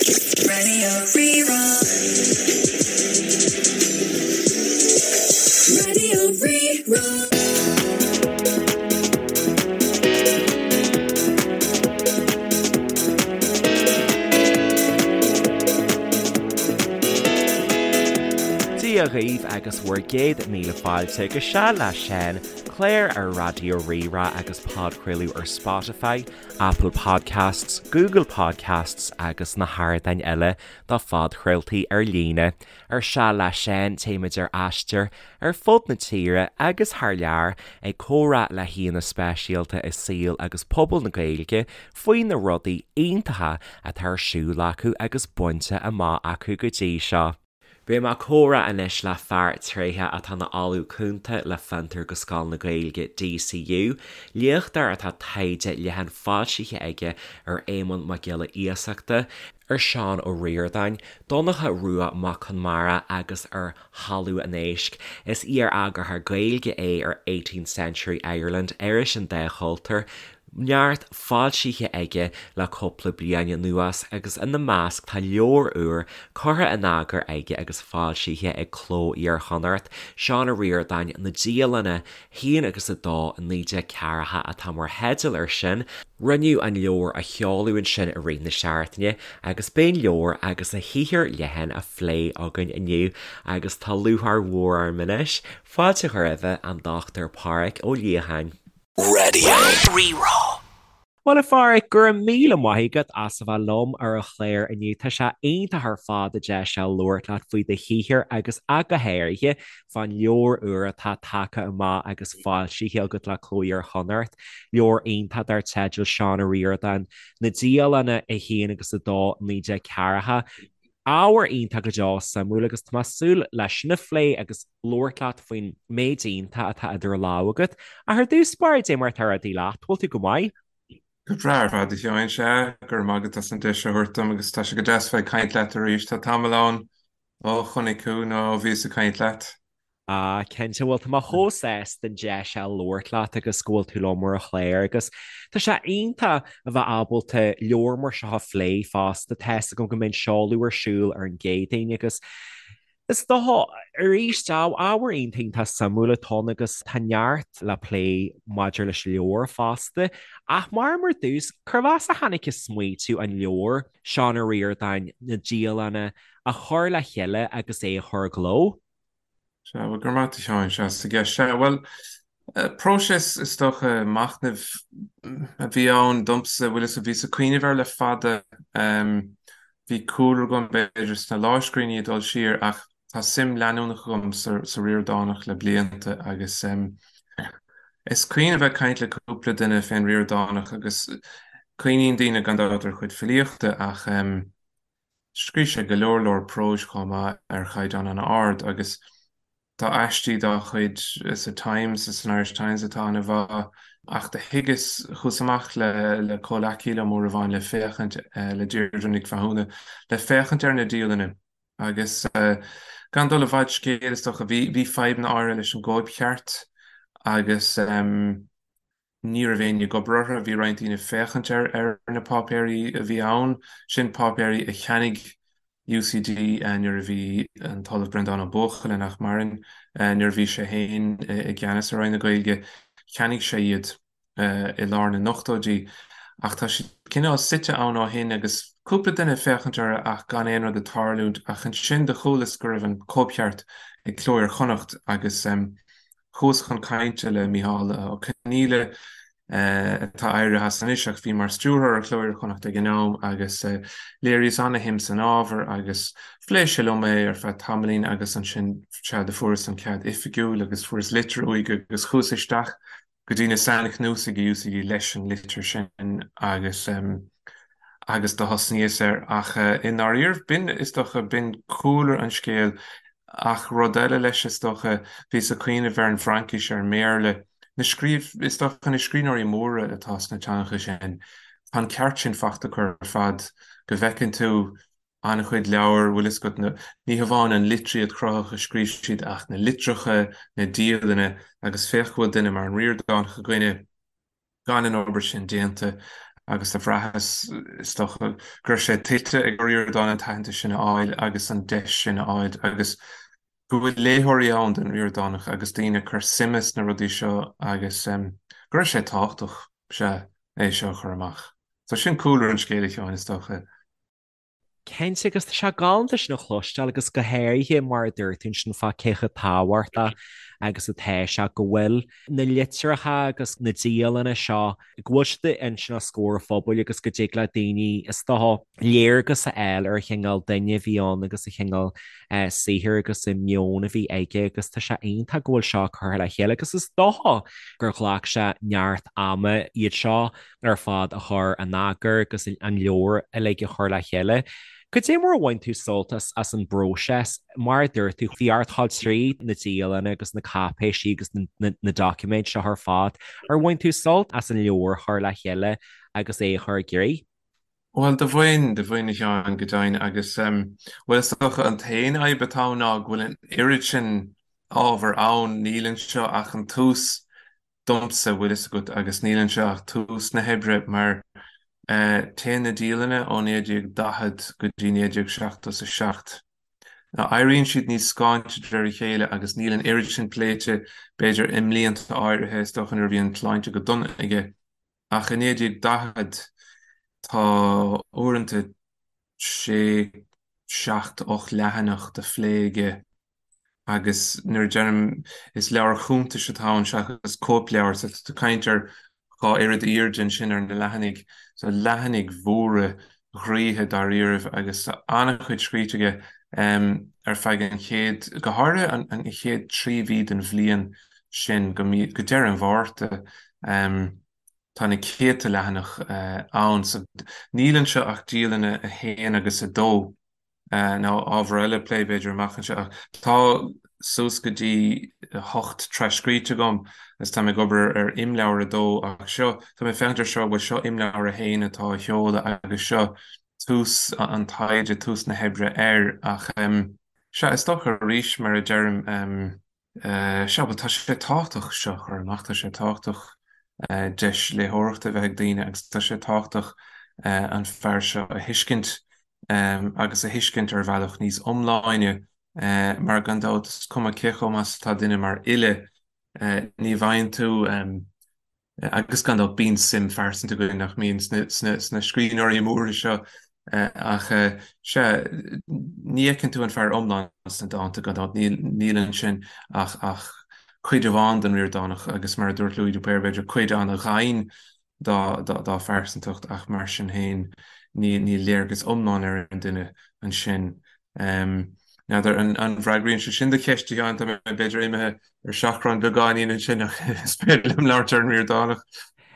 Raidió Rí-Rá. Raidió Rí-Rá. Dia dhaoibh agus bhur gcéad míle fáilte go Seal le Seán, clár ar Raidió Rí-Rá agus podchraoladh ar Spotify, Apple Podcasts, Google Podcasts agus na hardáin eile do phodchraoltaí ar líne. Ar Seal le Seán téimid ar aistear ar fud na tíre agus thar lear ag comhrá le haíonna speisialta i saol agus pobal na Gaeilge faoi na rudaí iontacha atá ar siúl acu agus bainte amach acu go dtí seo. Beidh mé ag comhrá anois le fear tréitheach atá ina Ollamh Cúnta le Fiontar go Scoil na Gaeilge, DCU, léachtóir atá taighde leathan foilsithe aige ar Éamonn Mac Giolla Iasachta, ar Seán Ó Ríordáin, Donncha Rua Mac Conmara agus ar Thalamh an Éisc. Is iar-eagarthóir Gaeilge é ar Eighteenth Century Ireland, iris an dá chultúr. Neart foilsithe aige le cúpla bliain anuas agus ina measc tá leabhar úr curtha in eagar aige agus foilsithe ag Cló Iar-Chonnacht, Seán Ó Ríordáin, Na Dialanna, 1 agus 2, 1940 atá mar theideal air sin. Rinneadh an leabhar a sheoladh ansin i rith na seachtaine agus beidh an leabhar agus a shaothar leathan á phlé againn inniu agus tá lúcháir mhór orm anois fáilte a chur roimhe, an Dr Pádhraic Ó Liatháin. Raidió Rí-Rá. Bhuel a Phádhraic, go raibh míle maith agat as a bheith liom ar an chlár inniu. Tá sé iontach ar fad an deis seo labhairt leat faoi do shaothar agus ach go háirithe fán leabhar úr atá tagtha amach agus foilsithe agat le Cló Iar-Chonnacht, leabhar iontach dar teideal Seán Ó Ríordáin, Na Dialanna 1 agus 2, 1940. Ábhar iontach go deo suimiúil agus tá mé ag súil leis sin a phlé agus labhairt leat faoin méid iontach atá idir lámha agat. Ach ar dtús báire, dé mar atá rudaí leat, bhfuil tú go maith? Go breá ar fad, a Sheáin, sea, go raibh maith agat as an deis a thabhairt dom agus tá sé go deas bheith ag caint leat arís. Tá tamall ann ó chonaic thú nó ó bhíos ag caint leat. Ah, cinnte, bhuel tá mé chomh sásta an deis a labhairt leat agus go bhfuil tú liom ar an chlár agus tá sé iontach a bheith ábalta leabhar mar seo a phlé fosta. Tá fhios agam go mbeidh an seoladh ar siúl ar an gCéadaoin agus is dócha arís ábhar iontach iontach suimiúil atá ann agus tá neart le plé maidir leis an leabhar fosta. Ach mar mar dtús, cérbh as a tháinig an smaoitiú an leabhar, Seán Ó Ríordáin, Na Dialanna, a chur le chéile agus é a chur i gcló? Sea, bhuel, go raibh maith agat a Sheáin, as an gceist. Sea, bhuel, próiseas, is dócha, machnaimh a bhí ann domsa, bhfuil fhios agat, bhíos ag cuimhneamh air le fada. Bhí cúlra agam, b'fhéidir, sna lámhscríbhinní ag dul siar ach tá suim leanúnach agam sa Ríordánach le blianta agus is cuimhin a bheith ag caint le cúpla duine fén Ríordánach agus cuimhníonn daoine gan dabht ar a chuid filíochta ach Scríobh sé go leor leor próis chomh maith ar chaighdeán an-ard agus tá aistí dá chuid sa Times, san Irish Times atá an-mhaith. Ach do thuigeas, chuas amach le le comhleacaí liom uair amháin le féachaint, le Deirdre Nic Mhathúna, le féachaint ar na dialanna agus gan dul i bhfad scéil is dócha, bhí bhí fadhbanna áirithe leis an gcóipcheart agus. Ní raibh éinne ag obair orthu, bhí roinnt daoine ag féachaint ar ar na páipéirí a bhí ann, sin páipéirí a cheannaigh UCD nuair a bhí an tOllamh Breandán Ó Buachalla, nach maireann, nuair a bhí sé féin i gceannas ar Roinn na Gaeilge, cheannaigh sé iad i lár na n-ochtóidí. Ach tá siad cineál suite ann ó shin agus cúpla duine ag féachaint orthu ach gan aon rud ag tarlúint. Ach ansin do chualas go raibh an cóipcheart ag Cló Iar-Chonnacht agus Chuas chun cainte le Micheál Ó Conghaile, atá éirithe as anois ach bhí mar stiúrthóir ar Chló Iar-Chonnacht ag an am, agus léiríos ana-shuim san ábhar agus phléigh sé liom é ar feadh tamaillín agus ansin sea do fuaireas an cead oifigiúil agus fuaireas litir uaidh agus chuas isteach go dtí na sainchnuasaigh i UCD leis an litir sin agus agus do thosnaíos air. Ach i ndáiríribh, b'in, is dócha, b'in cúlra an scéil. Ach rud eile leis, is dócha, bhíos ag cuimhneamh ar an bhFraincis, ar an mBéarla, na scríobh, is dócha, na scríbhneoirí móra atá sna teangacha sin, tá an ceart sin faighte acu ar fad, go bhfeiceann tú an-chuid leabhar, bhfuil fhios agat, na, ní hamháin an litríocht chruthaitheach a scríobh siad ach na litreacha, na dialanna agus féach go bhfuil duine mar an Ríordánach againne, gan an obair sin déanta. Agus do bhraitheas, is dócha, go raibh sé tuillte ag Ó Ríordáin an t-aitheantas sin a fháil agus an deis sin a fháil agus go bhfuil léitheoirí ann don Ríordánach agus daoine ag cur suime sna rudaí seo agus go raibh sé tábhachtach, sea, é seo a chur amach. So sin cúlra an scéil, a Sheáin, is dócha. Cinnte, agus tá sé galánta sin a chloisteáil agus go háirithe mar a dúirt tú ansin fá cé chomh tábhachtach agus atá sé go bhfuil na litreacha agus na dialanna seo, go bhfuil siad ansin os comhair an phobail agus go dtig le daoine, is dócha, léargas a fháil ar an chineál duine a bhí ann agus an chineál saothair agus an meon a bhí aige agus tá sé iontach go bhfuil seo curtha le chéile agus is dócha gur ghlac sé neart ama iad seo ar fad a chur in eagar agus an leabhar uilig a chur le chéile. Cad é mar a bhain tú sult as an bpróiseas? Mar a dúirt tú, bhí ort dul tríd na dialanna agus na cáipéisí agus na doiciméid seo ar fad. Ar bhain tú sult as an leabhar a chur le chéile agus é a chur i gcrích? Bhuel, do bhain, do bhain a Sheáin, go deimhin, agus, bhuel, is dócha an t-aon fhadhb atá ann ná go bhfuil an oiread sin ábhar ann, níl anseo ach an tús domsa, bhfuil fhios agat, agus níl anseo ach tús na hoibre, mar téann na dialanna ó 1940 go dtí 1977. Now, éiríonn siad níos scáinte de réir a chéile agus níl an oiread sin pléite, b'fhéidir, i mblianta áirithe, is dócha nuair a bhí an tsláinte go dona aige. Ach i 1940 tá uaireanta sé, seacht, 8 leathanach de phlé aige agus nuair a deirim is leabhar cuntais atá ann seachas cóipleabhar, so tá tú ag caint ar dhá oiread airde ansin ar na leathanaigh, so leathanaigh mhóra ghraoithe dáiríribh agus tá an-chuid scríte aige ar feadh an chéad, go háirithe an chéad 3 mhí den bhliain sin go mí, go deireadh an Mhárta. Tá na céadta leathanach ann. So níl anseo ach dialanna 1 agus 2, nó ábhar eile plé b'fhéidir amach anseo. Ach tá suas go dtí 8 tras-scríte agam agus tá mé ag obair ar imleabhar 2 ach seo, tá mé ag féachaint ar seo, bhuel seo imleabhar 1 atá á sheoladh agus seo tús an taighde, tús na hoibre air. Ach sea, is dócha arís mar a deirim, Sea, bhuel, tá sé tábhachtach seo a chur amach, tá sé tábhachtach deis léitheoireachta a bheith ag daoine agus tá sé tábhachtach an fear seo a thuiscint agus a thuiscint ar bhealach níos iomláine mar gan dabht is cuma cé chomh maith is atá duine mar fhile, ní bhfaigheann tú Agus gan dabht bíonn suim phearsanta againn, nach mbíonn, sna scríbhneoirí móra seo ach sea, ní fheiceann tú an fear iomlán sna dánta, gan dabht, níl ansin ach cuid amháin den Ríordánach agus mar a dúirt Louis de Paor, b'fhéidir cuid an-ghann dá phearsantacht ach mar sin féin níl léargas iomlán ar an duine ansin. N'fheadar an bhfreagraíonn sé sin do cheist, a Sheáin, tá mé b'fhéidir imithe ar seachrán beagáinín ansin ach is féidir liom labhairt ar an Ríordánach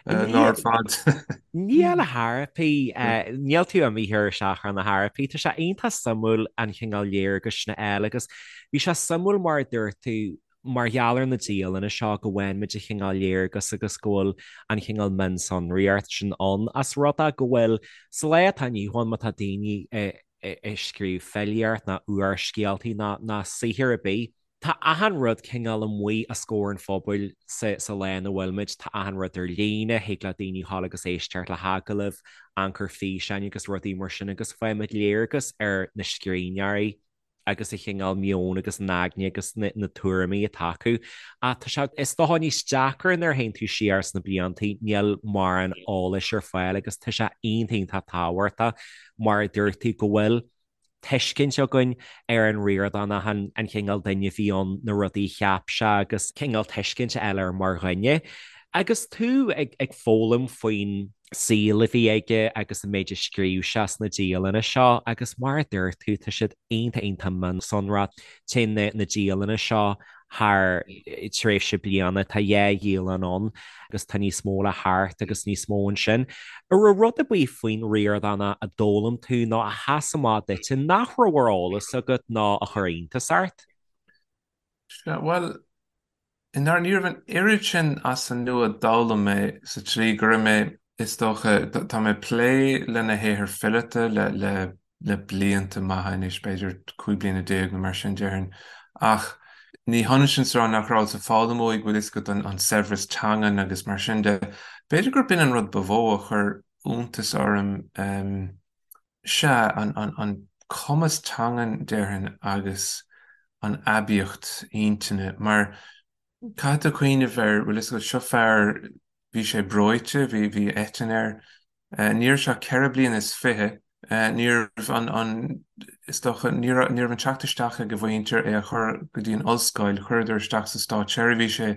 lá ar fad. Níl a thairfí, níl tú imithe ar seachrán a thairfí. Tá sé iontach suimiúil an chineál léargais sin a fháil agus bhí sé suimiúil mar a dúirt tú mar gheall ar na dialanna seo go bhfaigheann muid an chineál léargas agus go bhfuil an chineál mionsonraíocht sin ann as rud é go bhfuil sa lá atá inniu ann má tá daoine ag scríobh filíocht ná úrscéaltaí ná ná saothar ar bith. Tá achan rud cineál amuigh os comhair an phobail sa sa lá ina bhfuil muid, tá achan rud ar líne, thig le daoine dhul agus éisteacht le hagallaimh, amharc ar físeáin agus rudaí mar sin agus faighimid léargas ar na scríbhneoirí agus an chineál meoin agus an aigne agus na na tuairimí atá acu. Ach tá sé, is dócha, níos deacra nuair a théann tú siar sna bliantaí, níl mórán eolais ar fáil agus tá sé iontach iontach tábhachtach mar a dúirt tú, go bhfuil tuiscint againn ar an Ríordánach, an cineál duine a bhí ann, na rudaí a cheap sé agus cineál tuiscint a fháil air mar dhuine. Agus tú ag foghlaim faoin saol a bhí aige agus an méid a scríobh sé sna dialanna seo agus mar a dúirt tú, tá siad iontach iontach mionsonrach. Téann na dialanna seo thar tréimhse bliana, tá dhá dhialann ann agus tá níos mó le theacht agus níos mó ansin. An raibh rud ar bith faoin Ríordánach a d'fhoghlaim tú nó a sheas amach duit nach raibh ar eolas agat nó a chuir iontas ort? Sea, bhuel, i ndáiríre ní raibh an oiread sin as an nua a d'fhoghlaim mé sa tslí go raibh mé, is dócha, tá mé ag plé lena shaothar fileata le, le, le blianta maithe anois, b'fhéidir 15 bliana nó mar sin déarfainn. Ach ní hionann sin is a rá nach rabhas ag foghlaim uaidh, bhfuil fhios agat, an saibhreas teangan agus mar sin de. B'fhéidir gurb in an rud ba mhó a chuir. iontas orm, sea, an cumas teangan, déarfainn, agus an aibíocht intinne, mar caithfidh tú cuimhneamh ar, bhfuil fhios agat, seo fear, bhí sé breoite, bhí, bhí eitinn air, ní raibh sé ach 24 bliana, ní raibh an, an, is dócha, ní raibh, ní raibh an teacht isteach ag a mhuintir é a chur go dtí an ollscoil, chuireadar isteach sa státseirbhís é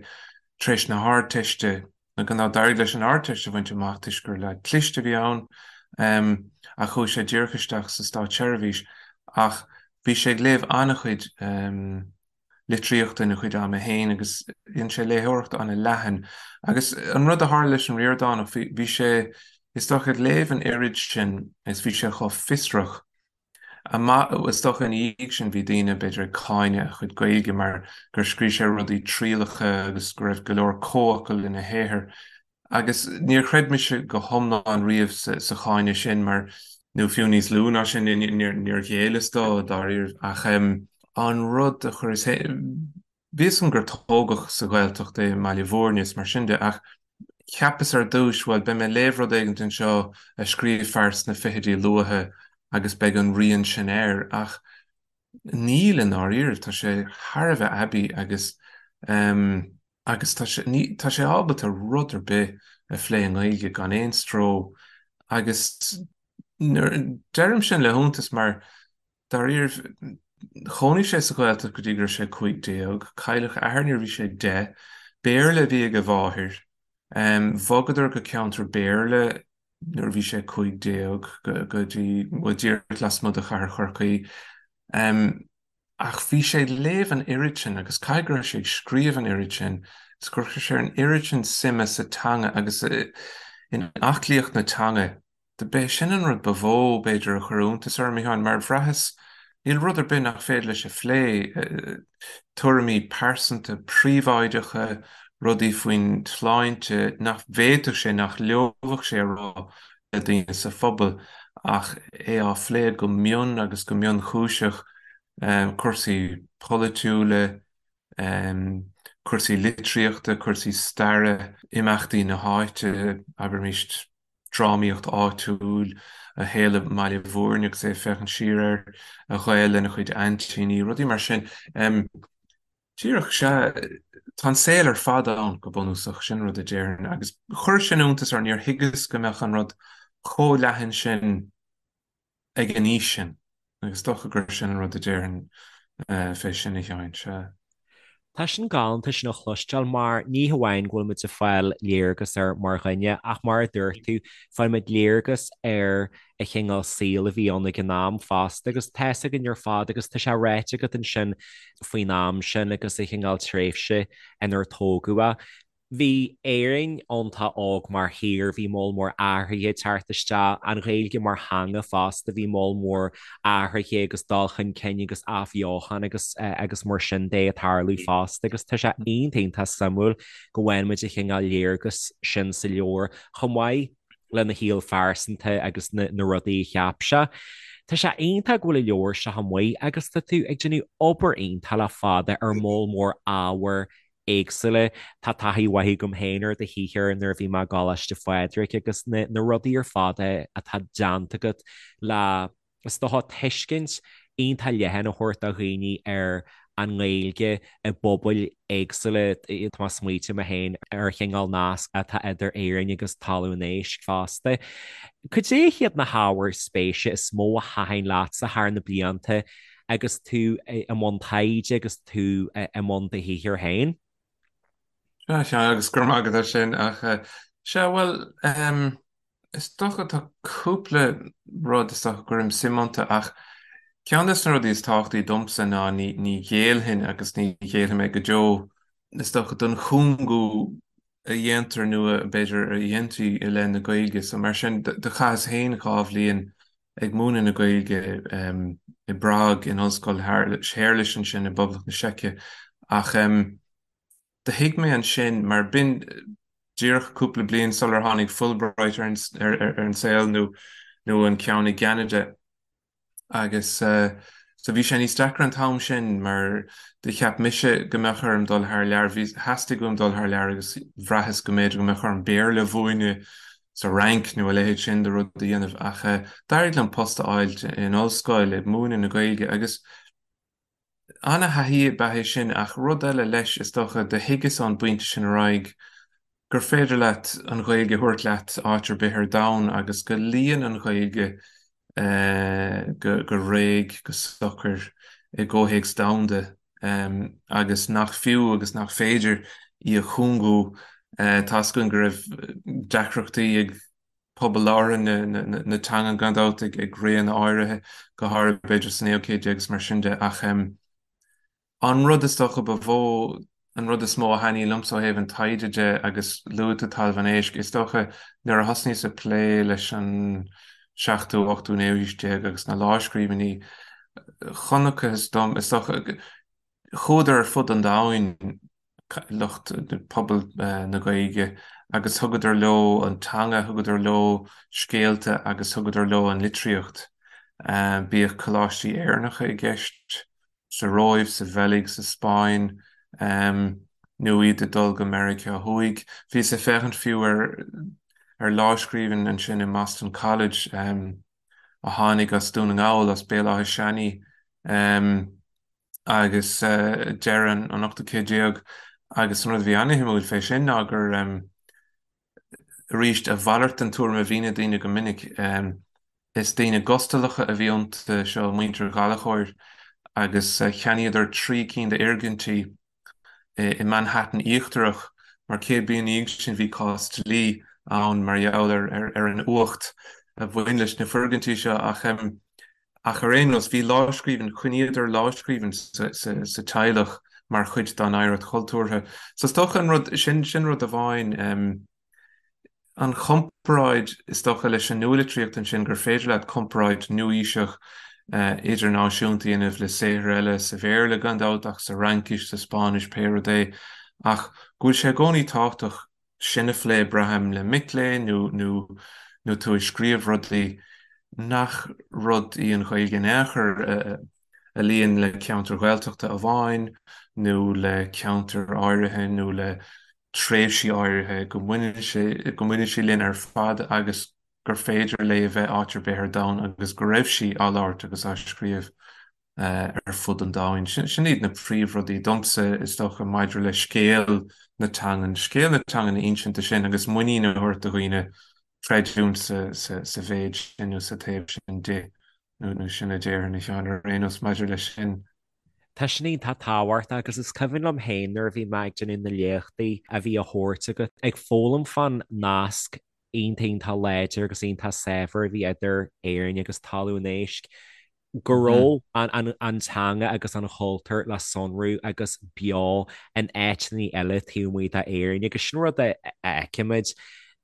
tar éis na hArdteiste, Nó gan dabht d'éirigh leis an Ardteist a bhaint amach toisc gur leaid cliste a bhí ann, ach chuaigh sé díreach isteach sa státseirbhís. Ach bhí sé ag léamh an-chuid litríochta ina chuid ama féin agus dhein sé léitheoireacht an-leathan. Agus an rud a tharla leis an Ríordánach, bhí sé, is dócha, ag léamh an oiread sin is bhí sé chomh fiosrach Amach, is dócha ina dhiaidh sin bhí daoine, b'fhéidir, ag cáineadh a chuid Gaeilge mar gur scríobh sé rudaí trialacha agus go raibh go leor comhfhocal ina shaothar. Agus níor chreid mise go hiomlán riamh sa cháineadh sin mar, nó fiú níos lú ná sin, níor ghéilleas dó dáiríre. Ach an rud a chuireas Bhí fhios agam gur tógadh sa Ghaeltacht é i mBaile Bhúirne is mar sin de ach cheapas ar dtúis, bhuel, beidh mé ag léamh rud éigint anseo a scríobh fear sna fichidí luatha agus beidh an rian sin air ach níl i ndáiríribh, tá sé thar a bheith aibí agus ehm agus tá sé, ní, tá sé ábalta rud ar bith a phlé i nGaeilge gan aon stró agus nuair, deirim sin le hiontas mar Dáiríribh, chónaigh sé sa Ghaeltacht go dtí go raibh sé 15. Cailleadh a athair nuair a bhí sé 10. Béarla a bhí ag a mháthair. Bhogadar go ceantar Béarla nuair a bhí sé 15, go dtí, bhuel, díreach lasmuigh de chathair Chorcaí. Ach bhí sé ag léamh an oiread sin agus caithfidh go raibh sé ag scríobh an oiread sin is gur chuir sé an oiread sin suime sa teanga agus in aclaíocht na teanga. B'é sin an rud ba mhó, b'fhéidir, a chuir iontas orm, a Sheáin, mar bhraitheas, níl rud ar bith nach féidir leis a phlé, tuairimí pearsanta príobháideacha, rudaí faoin tsláinte nach bhféadfadh sé, nach leomhfadh sé a rá le daoine sa phobal, ach é á phlé go mion agus go mionchúiseach, cúrsaí polaitiúla, cúrsaí litríochta, cúrsaí staire, imeachtaí na háite, abraimis. drámaíocht áitiúil, a shaol i mBaile Bhúirne agus é ag féachaint siar air, a ghaol lena chuid aintíní, rudaí mar sin. Díreach, sea, tá an saol ar fad ann, go bunúsach, sin rud a déarfainn. Agus chuir sin iontas orm, níor thuigeas go mbeadh an rud chomh leathan sin ag an aois sin, agus is dócha gur sin an rud a déarfainn fé sin, a Sheáin, sea. Tá sin galánta sin a chloisteáil mar ní hamháin go bhfuil muid ag fáil léargas air mar dhuine ach mar a dúirt tú, faigheann muid léargas ar an chineál saoil a bhí ann ag an am fosta agus tá fhios againn ar fad agus tá sé ráite agat ansin faoin am sin agus an chineál tréimhse inar tógadh é. Bhí Éirinn iontach óg mar thír, bhí moll mór athruithe ag teacht isteach, an Ghaeilge mar theanga fosta, bhí moll mór athruithe agus dul chun cinn agus athbheochan agus agus mar sin de ag tarlú fosta agus tá sé iontach iontach suimiúil go bhfaigheann muid an chineál léargas sin sa leabhar chomh maith lena shaol phearsanta agus na na rudaí a cheap sé. Tá sé iontach go bhfuil an leabhar seo amuigh agus tá tú ag déanamh obair iontach le fada ar moll mór ábhair éagsúla. Tá taithí mhaith agam féin ar do shaothar nuair a bhí mé i gColáiste Phádraig agus na na rudaí ar fad atá déanta agat le, is dócha, tuiscint iontach leathan a thabhairt do dhaoine ar an nGaeilge i bpobail éagsúla. Tá mé ag smaoitiú mé féin ar an chineál nasc atá idir Éirinn agus Talamh an Éisc fosta. Cad é hiad na hábhair spéise is mó a thaitin leatsa thar na blianta agus tú i mbun taighde agus tú i mbun do shaothair féin. Sea, sea, agus go raibh maith agat as sin, ach sea, bhuel, is dócha tá cúpla rud is dócha go gcuirim suim iontu, ach ceann de na rudaí is tábhachtaí domsa ná ní, ní ghéillfinn agus ní ghéillfidh mé go deo, is dócha, don chúngú a dhéantar nó a, b'fhéidir, a dhéantaí i leith na Gaeilge. So mar sin, do chaitheas féin 2 bhliain ag múineadh na Gaeilge i bPrág in Ollscoil Shéarlais ansin i bPoblacht na Seice ach do thuig mé ansin mar b'in díreach cúpla bliain sular tháinig Fulbright ar an saol nó nó an ceann i gCeanada. Agus so bhí sé níos deacra an t-am sin mar do cheap mise go mbeadh orm dul thar lear, bhí, theastaigh uaim dul thar lear agus bhraitheas go mb'fhéidir go mbeadh orm Béarla a mhúineadh. Sa Fhrainc nó a leithéid sin de rud a dhéanamh ach d'éirigh liom post a fháilt in ollscoil ag múineadh na Gaeilge agus ana-thaithí ab ea é sin ach rud eile leis is dócha do thuigeas ón bpointe sin ar aghaidh gur féidir leat an Ghaeilge a thabhairt leat áit ar bith ar domhan agus go luíonn an Ghaeilge go réidh, go socair i gcomhthéacs domhanda agus nach fiú agus nach féidir í a chúngú. Tá's againn go raibh deacrachtaí ag pobal labhartha na teangan gan dabht ag réanna áirithe, go háirithe b'fhéidir sa naoú céad déag agus mar sin de ach An rud is dócha ba mhó, an rud is mó a thaitníonn liomsa ó thaobh an taighde de, agus luaigh tú Talamh an Éisc, is dócha nuair a thosnaíos ag plé leis an seachtú, ochtú, naoú haois déag agus na lámhscríbhinní, chonacthas dom, is dócha, chuadar ar fud an domhain, lucht pobal na Gaeilge, agus thugadar leo an teanga, thugadar leo scéalta agus thugadar leo an litríocht. Bíodh coláistí Éireannacha i gceist, sa Róimh, sa Bheilg, sa Spáinn, nó iad ag dul go Meiriceá Thuaidh. Bhíos ag féachaint fiú ar ar lámhscríbhinn ansin i mBoston College a tháinig as Dún na nGall, as Béal Átha Seanaidh, agus deireadh an ochtú céad déag, agus an rud a bhí ana-shuimiúil fé sin ná gur, arís, a mhalairt den tuairim a bhíonn ag daoine go minic. Is daoine gustalacha a bhí iontu seo, muintir Ghallchóir, agus cheannaíodar 3 cinn d'fhoirgintí i Manhattan Íochtarach, mar 100 bliain ina dhiaidh sin bhí cás dlí ann mar gheall ar an uacht a bhain leis na foirgintí seo. Ach Ach ar aon nós, bhí lámhscríbhinn, choinníodar lámhscríbhinn sa teaghlach mar chuid dá n-oidhreacht chultúrtha. So is dócha an rud, sin, sin rud amháin, an chomparáid is dócha leis an nualitríocht ansin gur féidir leat comparáid nua-aoiseach idirnáisiúnta a dhéanamh le saothair eile sa Bhéarla gan dabht ach sa Fhraincis, sa Spáinnis, pé rud é, ach go bhfuil sé i gcónaí tábhachtach sin a phlé, braithim, le mic léinn nó nó nó tú ag scríobh rudaí nach rud í an Ghaeilge in aon chor a luíonn le ceantair Ghaeltachta amháin nó le ceantair áirithe nó le tréimhsí áirithe, go mbaineann sé go mbaineann sí linn ar fad agus gur féidir léi a bheith áit ar bith ar domhan agus go raibh sí á labhairt agus á scríobh. ar fud an domhain. Sin iad na príomhrudaí domsa, is dócha, maidir le scéal na teangan, scéal na teangan a insint sin agus muinín a thabhairt do dhaoine creidiúint sa mhéid sin nó sa taobh sin di, nó sin a déarfainn, a Sheáin, ar aon nós maidir leis sin. Tá sin iontach tábhachtach agus is cuimhin liom féin nuair a bhí mé ag déanamh na léachtaí a bhí á thabhairt agat, ag foghlaim fán nasc iontach iontach láidir agus iontach saibhir a bhí idir Éirinn agus Talamh an Éisc. go raibh an teanga agus an chultúr le sonrú agus beo in áiteanna eile taobh amuigh d'Éirinn agus sin rud a fheicimid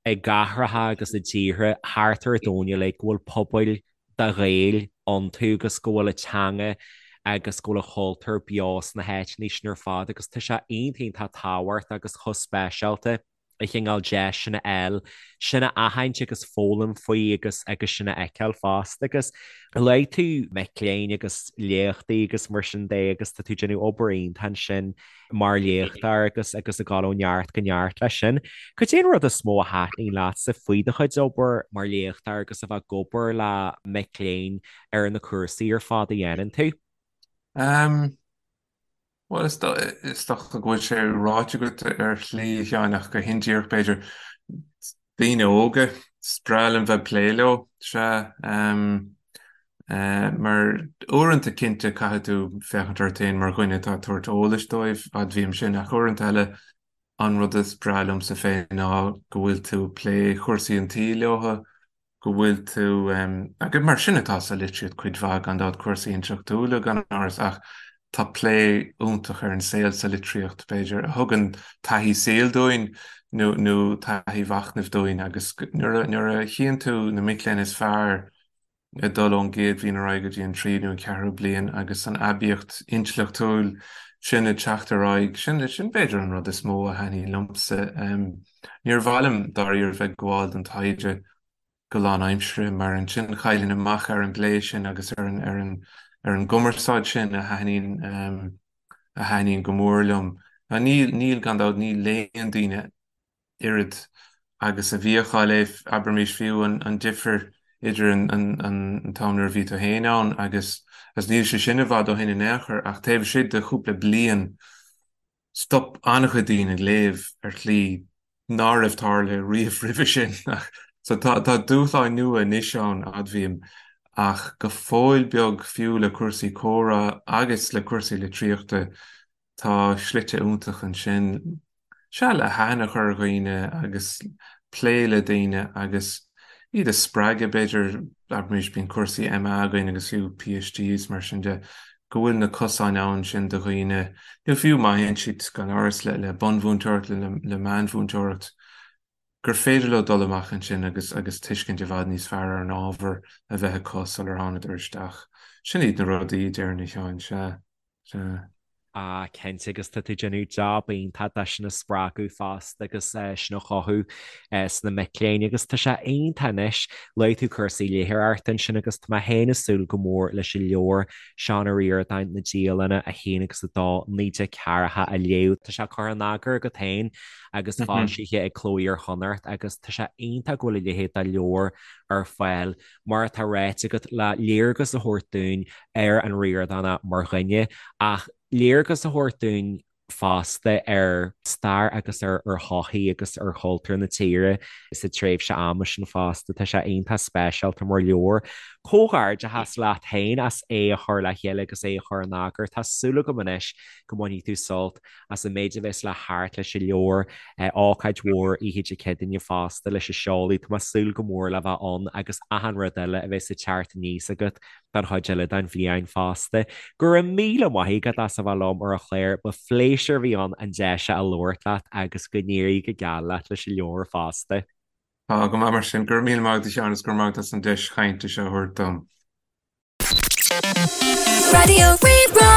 i gcathracha agus i dtíortha thart ar an domhan uilig go bhfuil pobail de Ghaeil iontu agus go bhfuil a teanga agus go bhfuil a chultúr beo sna háiteanna sin ar fad agus tá sé iontach iontach tábhachtach agus chomh speisialta. an chineál deis sin a fháil, sin a aithint agus foghlaim faoi agus agus sin a fheiceáil fosta. Agus luaigh tú mic léinn agus léachtaí agus mar sin de agus tá tú ag déanamh obair iontach ansin mar léachtóir agus agus ag dul ó neart go neart leis sin. Cad é an rud is mó a thaitníonn leatsa faoi do chuid obair mar léachtóir agus a bheith ag obair le mic léinn ar na cúrsaí ar fad a dhéanann tú? Um, Bhuel, is dócha go bhfuil sé ráite agat ar shlí, a Sheáin, ach go hindíreach, b'fhéidir. Daoine óga, is breá liom bheith ag plé leo, sea. Mar uaireanta, cinnte, caithfidh tú féachaint ort féin mar dhuine atá ag tabhairt eolais dóibh, admhaím sin, ach uaireanta eile, an rud is breá liomsa féin ná go bhfuil tú ag plé chúrsaí an tsaoil leo, go bhfuil tú, agus mar sin atá sa litríocht cuid mhaith, gan dabht, cúrsaí intleachtúla gan amhras, ach tá plé iontach ar an saol sa litríocht, b'fhéidir, a thugann taithí saoil dúinn nó nó taithí mhachnaimh dúinn agus nuair a nuair a chíonn tú na mic léinn is fearr ag dul ón gcéad bhliain ar aghaidh go dtí an tríú nó an ceathrú bliain agus an aibíocht intleachtúil sin ag teacht ar aghaidh, sin sin b'fhéidir an rud is mó a thaitníonn liomsa. Níor mhaith liom dáiríre bheith ag gabháil don taighde go lánaimseartha mar ansin chaillfinn amach ar an bplé sin agus ar an ar an ar an gcumarsáid sin a thaitníonn a thaitníonn go mór liom. Níl níl gan dabht ní léann daoine oiread. agus a bhíodh á léamh, abraimis fiú an difear idir an t-am nuair a bhí tú féin ann agus agus níl sé sin i bhfad ó shin in aon chor ach taobh istigh de chúpla bliain stop an-chuid daoine ag léamh ar shlí ná raibh tarlaithe riamh roimhe sin. So tá tá dúshláin nua anois ann, admhaím, ach go fóill beag fiú le cúrsaí comhrá agus le cúrsaí litríochta tá slite iontach ansin, sea, le haithne a chur ar dhaoine agus plé le daoine agus iad a spreagadh, b'fhéidir, abraimis, bíonn cúrsaí MA againn agus fiú PhD is mar sin de, go bhfuil na cosáin ann sin do dhaoine, nó fiú má théann siad, gan amhras, le bunmhúinteoireacht, le meánmhúinteoireacht, gur féidir leo dul amach ansin agus agus tuiscint i bhfad níos fearr ar an ábhar a bheith acu sular thánadar isteach. Sin iad na rudaí, déarfainn, a Sheáin, sea, sea. Ah, cinnte, agus tá tú ag déanamh jab iontach de sin a spreagadh fosta agus sin a chothú sna mic léinn agus tá sé iontach anois. Luaigh tú cúrsaí léitheoireachta ansin agus tá mé féin ag súil go mór leis an leabhar Seán Ó Ríordáin, Na Dialanna 1 agus 2, 1940 a léamh. Tá sé curtha in eagar agat féin agus foilsithe ag Cló Iar-Chonnacht agus tá sé iontach go bhfuil a leithéid de leabhar ar fáil mar atá ráite agat, le léargas a thabhairt dúinn ar an Ríordánach mar dhuine, ach léargas a thabhairt dúinn fosta ar stair agus ar shochaí agus ar chultúr na tíre sa tréimhse ama sin fosta. Tá sé iontach speisialta mar leabhar. Comhghairdeachas leat féin as é a chur le chéile agus é a chur in eagar. Tá súil agam anois go mbainfidh tú sult as an méid a bheas le theacht leis an leabhar, ócáid mhór oíche Dé Céadaoine fosta leis an seoladh. Tá mé ag súil go mór le bheith ann agus achan rud eile a bheas ag teacht aníos agat don chuid eile den bhliain fosta. Go raibh míle maith agat as a bheith liom ar an chlár, ba phléisiúr a bhí ann an deis seo a labhairt leat agus go n-éirí go geal leat leis an leabhar fosta. Tá go maith mar sin. Go raibh míle maith agat a Sheáin agus go raibh maith agat as an deis chainte seo a thabhairt dom. Raidió Rí-Rá.